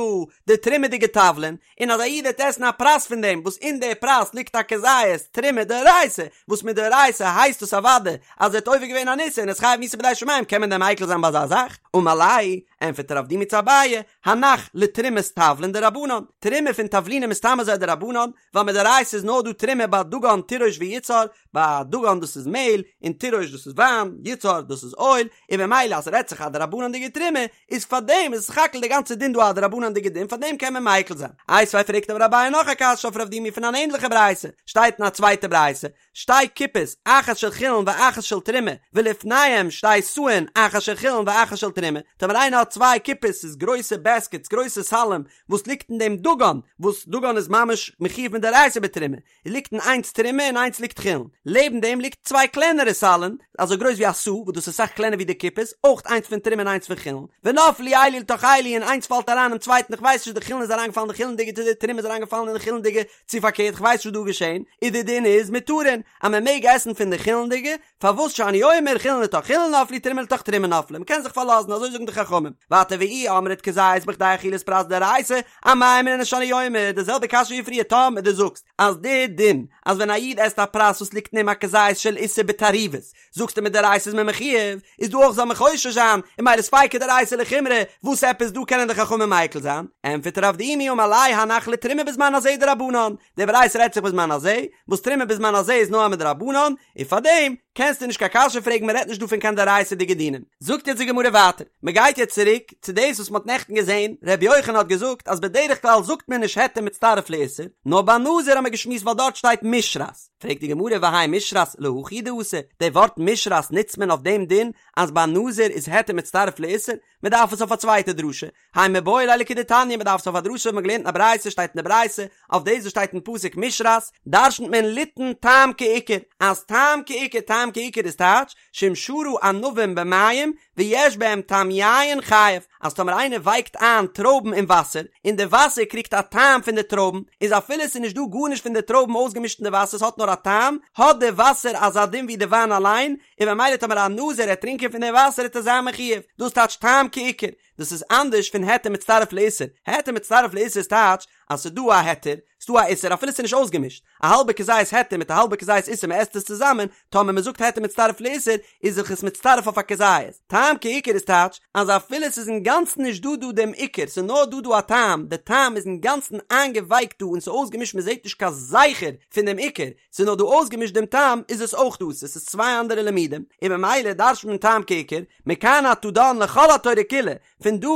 די תרומה'דיגע תבלין, און אז א איד וועט עסן א פרס פון דעם וואס אין די פרס ליגט א כזית תרומה דאורייתא, וואס מדאורייתא הייסט עס אוודאי אז ער האט עובר געווען אן איסור און איז חייב מיתה בידי שמים קען מען דען מיקל זיין ביי אזא זאך? אמר ליה, ענפערט רב דימי צו אביי, הנח לתרומת תבלין דרבנן, תרומה פון תבלינים איז סתם אזוי א דרבנן, ווייל מדאורייתא איז נאר דא תרומה ביי דגן תירוש ויצהר, ביי דגן דאס איז מעהל, און תירוש דאס איז וויין, יצהר דאס איז אויל, און במילא אז ס'רעדט זיך א דרבנן'דיגע תרומה, איז פארדעם איז סך הכל די גאנצע דין דא א דרבנן'דיגע דין פארדעם קען מען מיקל זיין. איתיביה פרעגט אבער אביי נאך א קשיא אויף רב דימי פון אן ענדליכע ברייתא, שטייט אין א צווייטע ברייתא, שתי קופות, אחת של חולין ואחת של תרומה, ולפניהם שתי סאין, אחת של חולין ואחת של תרומה, טאמער איינער האט צוויי קופות, ס'איז גרויסע בעסקעטס, גרויסע סלים, וואס ליגט אין דעם דגן, וואס דגן איז ממש מחויב מדאורייתא בתרומה, ליגט אין איינס תרומה און איינס ליגט חולין, לעבן דעם ליגט צוויי קלענערע סלין, אזוי גרויס ווי א סאה, וואס דאס איז אסאך קלענער ווי די קופות, אויך איינס פון תרומה און איינס פון חולין, ונפלו אלו לתוך אלו און איינס פאלט אריין אין צווייטן, איך ווייס נישט די חולין איז אריינגעפאלן אין די חולין'דיגע צו די תרומה איז אריינגעפאלן אין די חולין'דיגע, צו פארקערט כ'ווייס נישט וואס דא איז געשען, איז די דין איז מותרין אז מען מעג עסן פון די חולין'דיגע, פארוואס שאני אומר חולין לתוך חולין נפלו תרומה לתוך תרומה נפלה, מ'קען זיך פארלאזן אזוי זאגן די חכמים, ווייטער ואי אמרת כזית בכדי אכילת פרס דאורייתא, אמאי אמרינן שאני אומר, די זעלבע קשיא ווי פריער טאמער דו זאגסט אז די דין אז ווען א איד עסט א פרס וואס ליגט אין אים א כזית של איסור בתערובת. זאגסטו מדאורייתא איז מען מחויב, איז דא אויך זאל מען חושש זיין, און ממילא ספיקא דאורייתא לחומרא, וואס עפעס דא קענען די חכמים מיקל זיין? ענטפערט רב דימי אמר ליה הנח לתרומה בזמן הזה דרבנן, די ברייתא רעדט זיך בזמן הזה, וואס תרומה בזמן הזה איז נאר א מדרבנן, און פארדעם קענסטו נישט קיין קשיא פרעגן מען רעדט נישט דא פון קיין דאורייתא'דיגע דינים. זאגט יעצט די גמרא ווייטער, מען גייט יעצט צוריק צו דאס וואס מען האט נעכטן געזען, ר' יוחנן האט געזאגט אז בדרך כלל זאגט מען נישט היתר מצטרף לאיסור, נאר ביי נזיר האט מען געשמועסט ווייל דארט שטייט משרת, פרעגט די גמרא והאי משרת להכי הוא דאתא, די ווארט משרת נוצט מען אויף דעם דין אז ביי נזיר איז היתר מצטרף לאיסור, מען דארף עס אויף א צווייטע דרשה, האי מיבעי ליה לכדתניא מען דארף עס אויף א דרשה וואס מען האט געלערנט אין א ברייתא שטייט אין די ברייתא אויף דאס וואס שטייט אין פסוק משרת דרשנ'ט מען ליתן טעם כעיקר אז טעם כעיקר טעם כעיקר איז טייטש שאם שרה ענבים במים ויש בהם טעם יין חייב אז טאמער איינער ווייקט איין טרויבן אין וואסער און די וואסער קריגט א טעם פון די טרויבן איז אפילו עס איז נישט דא גארנישט פון די טרויבן אויסגעמישט אין די וואסער עס האט נאר א טעם האט די וואסער אזא דין ווי די וויין אליין און ממילא טאמער א נזיר העט טרינקען פון די וואסער העט ער זיין מחויב, דאס טייטש טעם כעיקר, דאס איז אנדערש פון היתר מצטרף לאיסור, היתר מצטרף לאיסור איז טייטש אז ס'איז דא א היתר, ס'איז דא א איסור אפילו ס'איז נישט אויסגעמישט, א האלבע כזית היתר מיט א האלבע כזית איסור מ'עסט עס צוזאמען, טאמער מ'זאגט היתר מצטרף לאיסור איז זיך עס מצטרף אויף א כזית, טעם כעיקר איז טייטש אז אפילו ס'איז אינגאנצן נישט דא דא דעם עיקר ס'איז נאר דא דא א טעם, די טעם איז אינגאנצן איינגעווייקט דא און ס'איז אויסגעמישט מ'זעט נישט קיין זכר פון דעם עיקר, ס'איז נאר דא אויסגעמישט דעם טעם איז עס אויך אסור, ס'איז צוויי אנדערע לימודים, און ממילא דרש'נט מען טעם כעיקר, מכאן אתה דן לכל התורה כולה, פון דא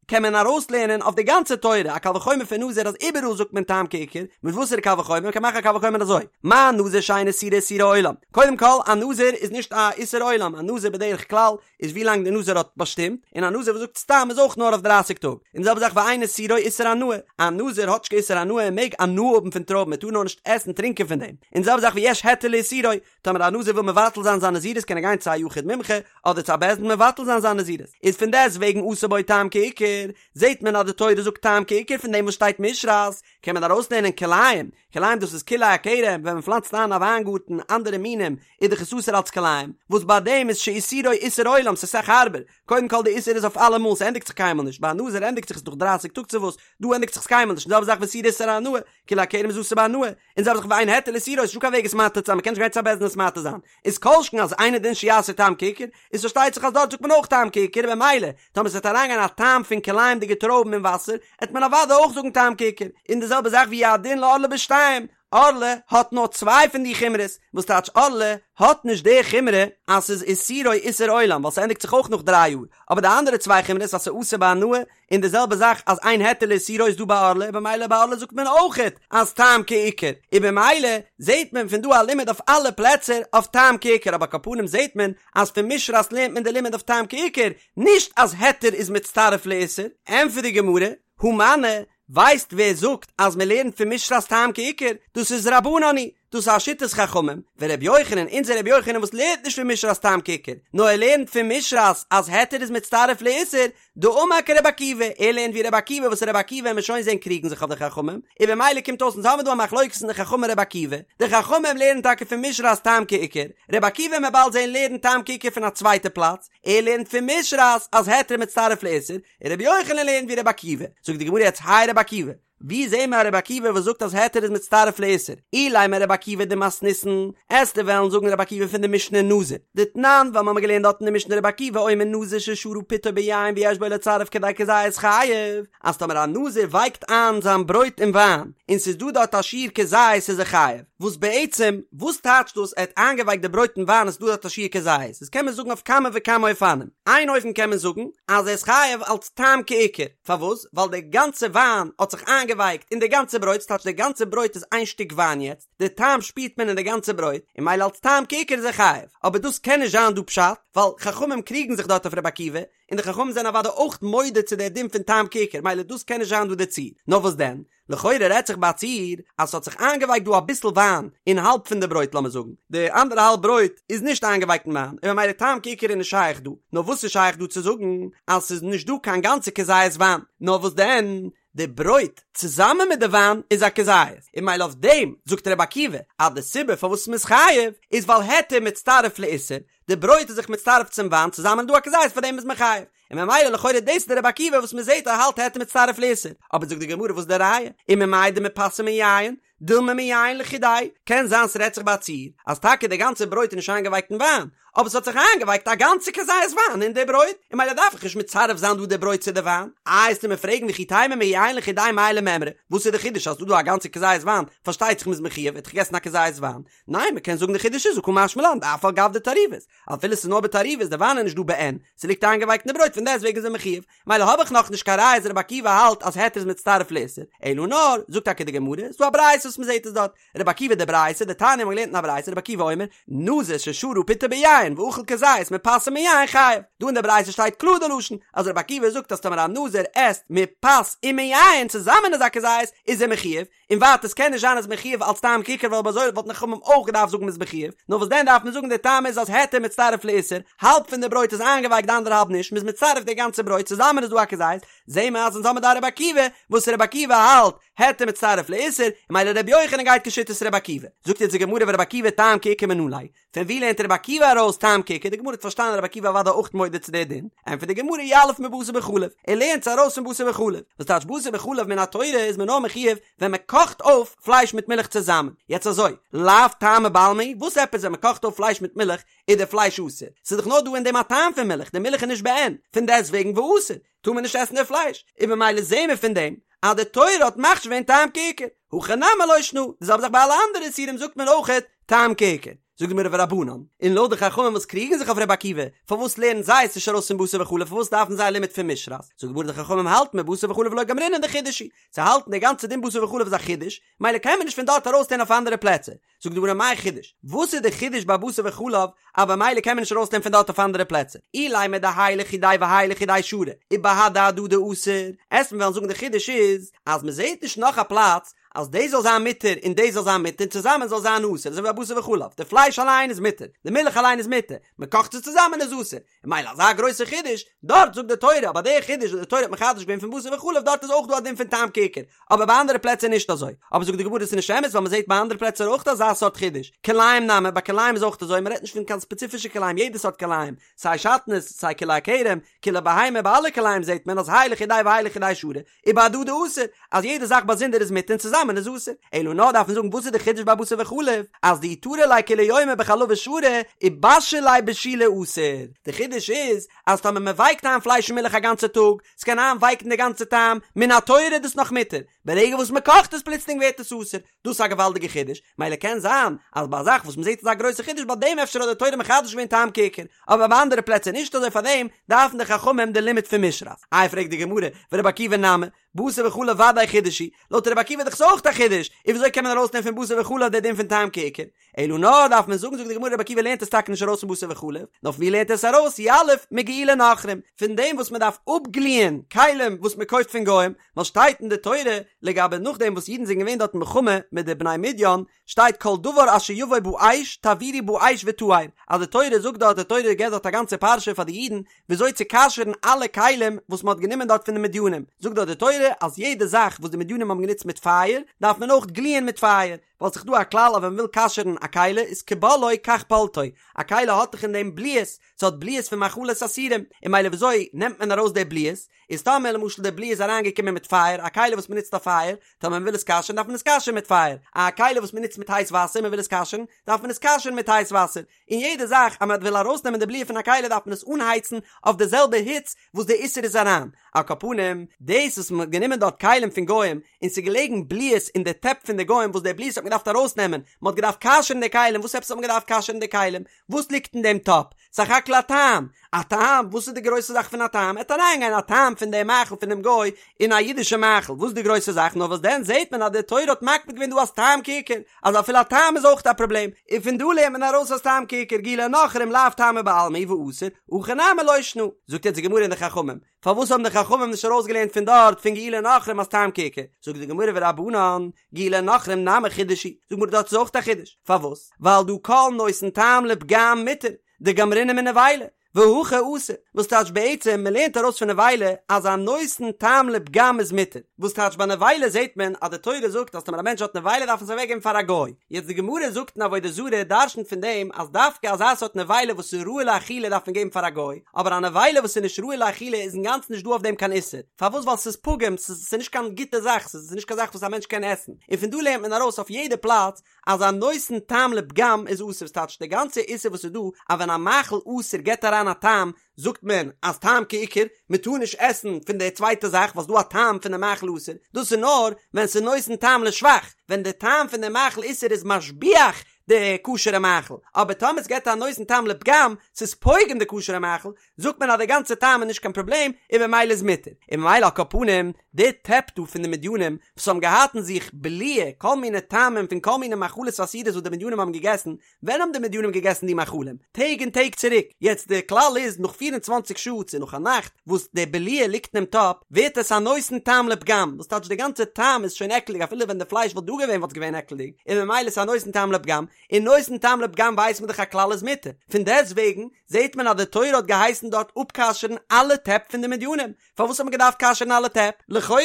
קען מען ארויסלערנען אויף די גאנצע תורה, א קל וחומר פון נזיר אז איבעראל זאגט מען טעם כעיקר, מיט וואסערע קל וחומר? מ'קען מאכן א קל וחומר אזוי, מה נזיר שאין איסורו איסורי עולם, קודם כל א נזיר איז נישט א איסור עולם, א נזיר בדרך כלל איז ווי לאנג די נזיר האט באשטימט, און א נזיר וואס זאגט סתם איז אויך נאר אויף דרייסיג טאג, און די זעלבע זאך ואין איסורו איסור הנאה, א נזיר האט נישט קיין איסור הנאה ער מעג הנאה האבן פון טרויבן ער טאר נאר נישט עסן טרינקען פון דעם, און די זעלבע זאך ויש היתר לאיסורו, טאמער א נזיר וויל מבטל זיין זיין נזירות קען ער גיין צו א יחיד מומחה אדער צו א בית דין מבטל זיין זיין נזירות, איז פון דעסט וועגן עשה בו טעם כעיקר, זעט מען אז די תורה זאגט טעם כעיקר פון דעם וואס שטייט משרת, קען מען ארויסלערנען כלאים, כלאים דאס איז כלאי הכרם, ווען מען פלאנצט איין א וויינגארטן אנדערע מינים איז דאך עס אסור אלץ כלאים, וואס ביי דעם איז שאיסורו איסור עולם ס'איז אסאך הארבער, קודם כל די איסור איז אויף אלעמאל ס'ענדיגט זיך קיינמאל נישט, ביי א נזיר ענדיגט זיך עס נאך דרייסיג טאג צו וואס, דא ענדיגט זיך עס קיינמאל נישט, און די זעלבע זאך ואיסורו איסור הנאה, כלאי הכרם איז אסור בהנאה, און די זעלבע זאך ואין היתר לאיסורו ס'איז נישטא קיין וועג עס מתיר צו זיין מ'קען נישט גיין צו א בית דין עס מתיר זיין, איז כל שכן אז אינו דין שיעשה טעם כעיקר, איז פארשטייט זיך אז דארט זאגט מען אויך טעם כעיקר, במילא טאמער ס'וועט אריינגיין א טעם פון כלאים'דיגע טרויבן אין וואסער, עט מען אוודאי אויך זאגן טעם כעיקר, און די זעלבע זאך והוא הדין לערלה בשתיים, ערלה האט נאר צוויי פון די חומרות, וואס טייטש ערלה האט נישט די חומרא אז ס'איז איסורו איסור עולם ווייל ס'ענדיגט זיך אויך נאך דריי יאר, אבער די אנדערע צוויי חומרות אז ס'איז אסור בהנאה און די זעלבע זאך אז אין היתר לאיסורו איז דא ביי ערלה און במילא ביי ערלה זאגט מען אויכעט אז טעם כעיקר, און במילא זעהט מען פון דא א לימוד אויף אלע פלעצער אויף טעם כעיקר אבער על כל פנים זעהט מען אז פון משרת לערנט מען די לימוד אויף טעם כעיקר, נישט אז היתר איז מצטרף לאיסור. ענטפערט די גמרא, הא מני, ווייסט ווער זאגט אז מען לערנט פון משרת טעם כעיקר? דאס איז רבנן היא, דאס איז א שיטת חכמים, ורבי יוחנן, אונזער רבי יוחנן וואס לערנט נישט פון משרת טעם כעיקר, נאר ער לערנט פון משרת אז היתר איז מצטרף לאיסור, דאמר כרבי עקיבא, ער לערנט ווי רבי עקיבא וואס רבי עקיבא וועלן מיר שוין זעהן קריגן זיך אויף די חכמים, און במילא קומט אויס אונז האבן דא א מחלוקת אין די חכמים רבי עקיבא, די חכמים לערנען טאקע פון משרת טעם כעיקר, רבי עקיבא וועלן מיר באלד זעהן לערנט טעם כעיקר פון א צווייטע פלאץ, ער לערנט פון משרת אז היתר מצטרף לאיסור, און רבי יוחנן לערנט ווי רבי עקיבא, זאגט די גמרא יעצט הי רבי עקיבא, ווי זעהן מיר א רבי עקיבא וואס זאגט אז היתר איז מצטרף לאיסור? אילימא רבי עקיבא דמתניתין, עסטו וועלן זאגן רבי עקיבא פון די משנה נזיר, דתנן, ווייל מ'האמיר געלערנט דארט אין די משנה רבי עקיבא אומר נזיר ששרה פתו ביין ויש בו לצרף כדי כזית חייב, אז טאמער א נזיר ווייקט איין זיין ברויט אין וויין, און ס'איז דא דארט א שיעור כזית איז ער חייב, וואס בעצם, וואס טייטשט דאס ער האט איינגעווייקט די ברויט אין וויין און ס'איז דא דארט א שיעור כזית? דאס קען מען זאגן אויף כמה וכמה אופנים, איין אופן קען מען זאגן אז ער איז חייב אלץ טעם כעיקר, פארוואס? ווייל די גאנצע וויין האט זיך איינגעווייקט אין די גאנצע ברויט, ס'טייטש די גאנצע ברויט איז איין שטיק וויין יעצט, די טעם שפירט מען אין די גאנצע ברויט, און ממילא אלץ טעם כעיקר איז ער חייב. אבער דאס קען נישט זיין דא פשט, ווייל חכמים קריגן זיך דארט אויף רבי עקיבא, און די חכמים זענען אוודאי אויך מודה צו דער דין פון טעם כעיקר, ממילא דאס קען נישט זיין דא די ציור. נאר וואס דען? לכאורה רעדט זיך ביי א ציור אז ס'האט זיך איינגעווייקט דא אביסל וויין אין האלב פון די ברויט לאמיר זאגן די אנדערע האלב ברויט איז נישט איינגעווייקט אין וויין און ממילא טעם כעיקר איז נישט שייך דא נאר וואס איז שייך דא צו זאגן אז ס'איז נישט דא קיין גאנצע כזית וויין נאר וואס דען די ברויט צוזאמען מיט די וויין איז א כזית און ממילא אויף דעם זאגט רבי עקיבא אז די סיבה פארוואס מ'איז חייב איז ווייל היתר מצטרף לאיסור. די ברויט איז זיך מצטרף צום וויין, צוזאמען איז דא א כזית פאר דעם איז מען חייב. און ממילא לכאורה דאס איז די רבי עקיבא וואס מען זעט ער האלט היתר מצטרף לאיסור, אבער זאגט די גמרא וואס איז די ראיה? וממאי דמפת ומיין, דילמא מיין לחודיה, קען זיין ס'רעדט זיך ביי א ציור אז טאקע די גאנצע ברויט איז נישט איינגעווייקט אין וויין, אבער ס'האט זיך איינגעווייקט א גאנצע כזית וויין אין די ברויט, און ממילא דארף איך נישט מצרף זיין דא די ברויט צו די וויין. איי וועסטו מיר פרעגן וכי תימא מיין לחודיה מאי למימרא, וואס איז די חידוש אז ס'דא דא א גאנצע כזית וויין, פארשטייט זיך מ'איז מחויב, ער האט דאך געגעסן א כזית וויין, ניין מ'קען זאגן די חידוש איז הא קא משמע לן דאף על גב דתערובת, אפילו ס'איז נאר בתערובת, די וויין איז נישט דא בעין, ס'ליגט איינגעווייקט אין די ברויט פון דעסטוועגן איז ער מחויב, מילא האב איך נאך נישט קיין ראיה אז רבי עקיבא האלט אז היתר איז מצטרף לאיסור, אלא נאר, זאגט טאקע די גמרא, ס'דא א ברייתא וואס מ'זעט עס דארט, רבי עקיבא די ברייתא, דתניא מ'האט געלערנט אין א ברייתא רבי עקיבא אומר, נזיר ששרה פתו ביין ואכל כזית מפת ומיין חייב, דא אין די ברייתא שטייט קלאר די לשון אז רבי עקיבא זאגט אז טאמער א נזיר עסט מפת ומיין צוזאמען איז א כזית איז ער מחויב, און ווייטער עס קען נישט זיין אז מחויב אלס טעם כעיקר ווייל אויב אזוי וואלטן חכמים אויך געדארפט זאגן מ'איז מחויב, נאר וואס דען דארף מען זאגן די טעם איז אז היתר מצטרף לאיסור, האלב פון די ברויט איז איינגעווייקט די אנדערע האלב נישט, מ'איז מצרף די גאנצע ברויט צוזאמען איז דא א כזית, זעהן מיר אז אונז האמיר דא א רבי עקיבא, וואס רבי עקיבא האלט, היתר מצטרף לאיסור, און ממילא רבי יוחנן גייט כשיטת רבי עקיבא. זאגט יעצט די גמרא ורבי עקיבא טעם כעיקר מנא ליה, פון ווי לערנט רבי עקיבא ארויס טעם כעיקר, די גמרא האט פארשטאנען רבי עקיבא אוודאי אויך מודה צו די דין, ענטפערט די גמרא יליף מבשר בחלב, ער לערנט עס ארויס פון בשר בחלב, וואס טייטש בשר בחלב מן התורה איז מען נאר מחויב ווען מען קאכט אויף פלייש מיט מילך צוזאמען, יעצט אזוי, לאו טעמא בעלמא הוא, וואס עפעס ווען מען קאכט אויף פלייש מיט מילך איז די פלייש אסור, ס'איז דאך נאר דא אין דעם א טעם פון מילך, די מילך איז נישט בעין, פון דעסטוועגן ואסור, טאר מען נישט עסן די פלייש, און ממילא זעהן מיר פון דעם אז די תורה האט מכשיר געווען טעם כעיקר, הכא נמי לא שנא, די זעלבע זאך ביי אלע אנדערע איסורים זאגט מען אויכעט טעם כעיקר. זאגט די גמרא ורבנן, און לויט די חכמים וואס קריגן זיך אויף רבי עקיבא, פארוואס לערנען זיי עס נישט ארויס פון בשר בחלב, פארוואס דארפן זיי א לימוד פון משרת? זאגט די גמרא די חכמים האלטן מבשר בחלב לא גמרינן דחידוש הוא, זיי האלטן די גאנצע דין בשר בחלב איז א חידוש, מילא קען מען נישט פון דארט ארויסלערנען אויף אנדערע פלעצער. זאגט די גמרא מאי חידוש? וואס איז די חידוש ביי בשר בחלב אז במילא קען מען נישט ארויסלערנען פון דארט אויף אנדערע פלעצער? אילימא דהאי לחודיה והאי לחודיה שרי ובהדי הדדי אסור, עסט מען וועלן זאגן די חידוש איז אז מען זעט נישט נאך א פלאץ אז דאס זאל זיין מותר און דאס זאל זיין מותר און צוזאמען זאל זיין אסור אזוי ווי ביי בשר בחלב די פלייש אליין איז מותר די מילך אליין איז מותר מען קאכט עס צוזאמען איז אסור און מילא אזא גרויסע חידוש, דארט זאגט די תורה, אבער די חידוש וואס די תורה האט מחדש געווען פון בשר בחלב דארט איז אויך דא א דין פון טעם כעיקר, אבער ביי אנדערע פלעצער נישט אזוי. אבער זאגט די גמרא עס איז נישט אמת ווייל מען זעט ביי אנדערע פלעצער אויך אזא סארט חידוש, כלאים נמי, ביי כלאים איז אויך אזוי, מען רעדט נישט פון קיין ספעציפישע כלאים יעדע סארט כלאים, סיי שעטנז, סיי כלאי הכרם, כלאי בהמה, ביי אלע כלאים זעט מען אז האי לחודיה והאי לחודיה שרי, ובהדדי אסור, אז יעדע זאך באזונדער איז מותר און צוזאמען איז אסור. אלא נאר דארף מען זאגן וואס איז די חידוש ביי בשר בחלב, אז דאי טרי ליה כולי יומא בחלבא שרי, ובשיל ליה בשולי אסור. די חידוש איז, אז טאמער מען ווייקט איין פלייש אין מילך א גאנצע טאג, ס'קען איינווייקן די גאנצע טעם, מן התורה איז דאס נאך מותר, ברגע וואס מען קאכט עס פלוצלינג ווערט עס אסור. דאס איז א געוואלדיגע חידוש, מילא קען זיין אז ביי א זאך וואס מ'זעט אזא גרויסע חידוש ביי דעם אפשר האט די תורה מחדש געווען טעם כעיקר, אבער ביי אנדערע פלעצער נישט אזוי פארדעם דארפן די חכמים די לימוד פון משרת. איי פרעגט די גמרא, ורבי עקיבא נמי, בשר בחלב ודאי חידוש הוא, לויט רבי עקיבא איז דאך עס אויך א חידוש, און וויאזוי קען מען ארויסנעמען פון בשר בחלב די דין פון טעם כעיקר? אלא נאר דארף מען זאגן זאגט די גמרא רבי עקיבא לערנט עס טאקע נישט ארויס פון בשר בחלב, נאר פון ווי לערנט ער עס ארויס? יליף מגיעולי נכרים, פון דעם וואס מען דארף אפגליען כלים וואס מען קויפט פון גוים, ווייל שטייט אין די תורה לגבי נאכדעם וואס אידן זענען געווען דארט אין מלחמה מיט די בני מדין, שטייט כל דבר אשר יבוא באש תעבירו באש וטהר, אז די תורה זאגט דארט, די תורה געבט דארט א גאנצע פרשה פאר די אידן וויאזוי צו כשר'ן אלע כלים וואס מען האט גענומען דארט פון די מדינים, זאגט דארט די תורה אז יעדע זאך וואס די מדינים האבן גענוצט מיט פייער דארף מען אויך גליען מיט פייער, ווייל ס'איז דא א כלל אז ווען מ'וויל כשר'ן א כלי איז כבולעו כך פולטו, א כלי האט דאך אין דעם בליעות, ס'האט בליעות פון מאכלות אסורים, און מילא וויאזוי נעמט מען ארויס די בליעות, איז טאמער למשל די בליעה איז אריינגעקומען מיט פייער, א כלי וואס מ'נוצט אויף פייער, טאמער מ'וויל עס כשר'ן דארף מען עס כשר'ן מיט פייער, א כלי וואס מ'נוצט מיט הייס וואסער מ'וויל עס כשר'ן, דארף מען עס כשר'ן מיט הייס וואסער, און יעדע זאך אז מ'וויל ארויסנעמען די בליעה פון א כלי דארף מען עס אנהייצן אויף די זעלבע היץ וואס די איסור איז אריין, על כל פנים, דאס וואס מ'האט גענומען דארט כלים פון גוים און ס'איז געלעגן בליעות אין די טעפ פון די גוים וואס די בליעות האט מען געדארפט ארויסנעמען, מ'האט געדארפט כשר'ן די כלים, וואס עפעס האט מען געדארפט כשר'ן די כלים? וואס ליגט אין דעם טאפ? סך הכל א טעם! א טעם? וואס איז די גרויסע זאך פון א טעם? עט אריינגיין א טעם פון דעם מאכל פונעם גוי אין א אידישע מאכל, וואס איז די גרויסע זאך? נאר וואס דען זעט מען אז די תורה האט מקפיד געווען דא אז טעם כעיקר, אז אפילו א טעם איז אויך א פראבלעם, און פון דא לערנט מען ארויס אז טעם כעיקר גיעולי נכרים לאו טעמא בעלמא הוא ואסור, הכא נמי לא שנא. זאגט יעצט די גמרא און די חכמים, פארוואס האבן די חכמים נישט ארויסגעלערנט פון דארט פון גיעולי נכרים אז טעם כעיקר? זאגט די גמרא ורבנן, גיעולי נכרים נמי חידוש הוא, זאגט די גמרא דארט איז אויך א חידוש, פארוואס? ווייל דהא כל נותן טעם לפגם מותר, דגמרינן מנבילה. והכא אסור, וואס טייטש בעצם מען לערנט ארויס פון נבילה אז א נותן טעם לפגם איז מותר, וואס טייטש ביי נבילה זעט מען אז די תורה זאגט אז טאמער א מענטש האט נבילה דארף מען עס אוועק געבן פאר א גוי, יעצט די גמרא זאגט אין עבודה זרה דרשנ'ט פון דעם אז דווקא אזא סארט נבילה וואס איז ראוי לאכילה דארף מען געבן פאר א גוי, אבער א נבילה וואס איז נישט ראוי לאכילה איז אינגאנצן נישט דא אויף דעם קיין איסור, פארוואס ווייל ס'איז פגום, ס'איז נישט קיין גוטע זאך, ס'איז נישט קיין זאך וואס א מענטש קען עסן, און פון דא לערנט מען ארויס אויף יעדע פלאץ אז א נותן טעם לפגם איז אסור, ס'טייטש די גאנצע איסור וואס איז דא אז ווען א מאכל אסור געבט אריין א טעם זאגט מען אז טעם כעיקר, מען טאר נישט עסן פון די צווייטע זאך ווייל ס'דא א טעם פון די מאכל אסור, דאס איז נאר ווען ס'איז נותן טעם לשבח, ווען די טעם פון די מאכל איסור איז משביח די כשר'ע מאכל, אבער טאמער ס'געבט א נותן טעם לפגם, ס'איז פוגם די כשר'ע מאכל, זאגט מען אז די גאנצע טעם איז נישט קיין פראבלעם און במילא איז מותר, און ממילא על כל פנים די טעפ דא פון די מדינים וואס האבן געהאט אין זיך בליעה כל מיני טעמים פון כל מיני מאכלות אסורות וואס די מדינים האבן געגעסן, ווען האבן די מדינים געגעסן די מאכלים? טעג און טעג צוריק, יעצט די כלל איז נאך פיר און צוואנציג שעה צו נאך א נאכט וואס די בליעה ליגט אינעם טאפ ווערט עס א נותן טעם לפגם, וואס טייטש די גאנצע טעם איז שוין עקלדיג אפילו ווען די פלייש וואלט דא געווען וואלט עס געווען עקלדיג, און ממילא איז א נותן טעם לפגם, און נותן טעם לפגם ווייסט מען דאך א כלל איז מותר, פון דעסט וועגן זעט מען אז די תורה האט געהייסן דארט אפכשר'ן אלע טעפ פון די מדינים, פארוואס האט מען געדארפט כשר'ן אלע טעפ? לכאורה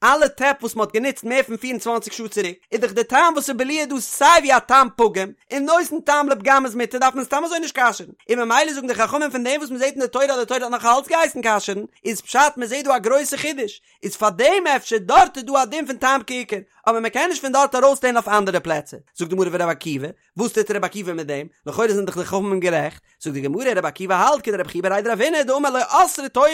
אלע טעפ וואס מען האט גענוצט מער פון 24 שעה צוריק, איז דאך די טעם וואס איז בליעה דא סיי ווי א טעם פגום, און נותן טעם לפגם איז מותר דארף מען סתם אזוי נישט כשר'ן, און ממילא זאגן די חכמים פון דעם וואס מען זעט אין די תורה אז די תורה האט נאך אלץ געהייסן כשר'ן, איז פשט מען זעט דא א גרויסע חידוש, איז פאר דעם אפשר דארט איז דא א דין פון טעם כעיקר, אבער מען קען נישט פון דארט ארויסלערנען אויף אנדערע פלעצער, זאגט די גמרא ור' עקיבא, וואס טוט רבי עקיבא מיט דעם? לכאורה זענען דאך די חכמים גערעכט. זאגט די גמרא, רבי עקיבא האלט כדרב חייא בריה דרב הונא דאמר לא אסרה תורה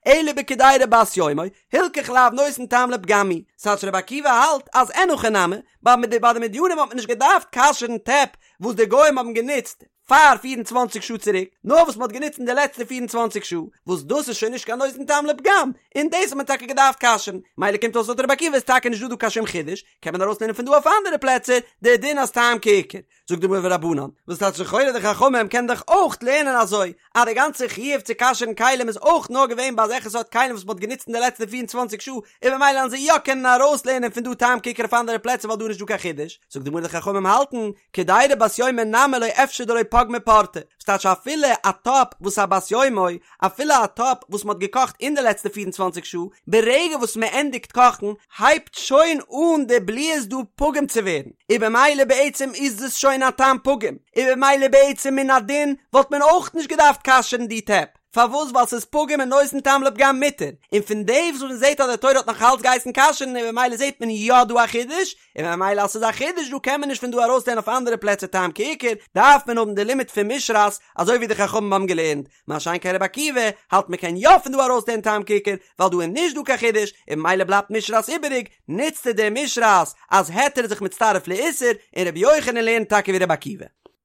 אלא בקדירה בת יומו, הלכך לאו נותן טעם לפגם היא. ס'טייטש רבי עקיבא האלט אז אין הכי נמי, ביי די מדינים האט מען נישט געדארפט כשר'ן טעפ וואס די גוים האבן גענוצט פאר פיר און צוואנציג שעה צוריק, נאר וואס מ'האט גענוצט אין די לעצטע 24 שעה, וואס דאס איז שוין נישט קיין נותן טעם לפגם, און דאס האט מען טאקע געדארפט כשר'ן. מילא קומט אויס לויט רבי עקיבא איז טאקע נישט דא דא קיין שום חידוש, קען מען ארויסלערנען פון דא אויף אנדערע פלעצער די דין אז טעם כעיקר. זאגט די גמרא ורבנן, וואס טייטש לכאורה די חכמים קענען דאך אויך לערנען אזוי, אז די גאנצע חיוב צו כשר'ן כלים איז אויך נאר געווען ביי אזעלכע סארט כלים וואס מ'האט גענוצט אין די לעצטע 24 שעה, און במילא וועלן זיי יא קענען ארויסלערנען פון דא טעם כעיקר אויף אנדערע פלעצער ווייל דא איז נישט דא קיין חידוש. זאגט די גמרא די חכמים האלטן, קדירה בת יומו נמי לא אפשר דלא פגמה פורתא, וואס טייטש אפילו א טאפ וואס א בת יומו, אפילו א טאפ וואס מ'האט געקאכט אין די לעצטע 24 שעה, ברגע וואס מ'ענדיגט קאכן הייבט שוין אן די בליעות דא פגום צו ווערן, און במילא בעצם איז עס שוין א טעם פגום, און במילא בעצם מן הדין וואלט מען אויך נישט געדארפט כשר'ן די טעפ, פארוואס ווייל ס'איז פגום און נותן טעם לפגם מותר, און פון דעם וואס מ'זעט אז די תורה האט נאך אלץ געהייסן כשר'ן און במילא זעט מען יא דא א חידוש, און ממילא אז ס'איז א חידוש דא קען מען נישט פון דא ארויסלערנען אויף אנדערע פלעצער טעם כעיקר, דארף מען האבן די לימוד פון משרת אזוי ווי די חכמים האבן געלערנט, מה שאין כן רבי עקיבא האלט מען קען יא פון דא ארויסלערנען טעם כעיקר ווייל דא איז נישט דא קיין חידוש און ממילא בלייבט משרת איבעריג, נוצט ער די משרת אז היתר איז זיך מצטרף לאיסור, און רבי יוחנן לערנט טאקע ווי רבי עקיבא.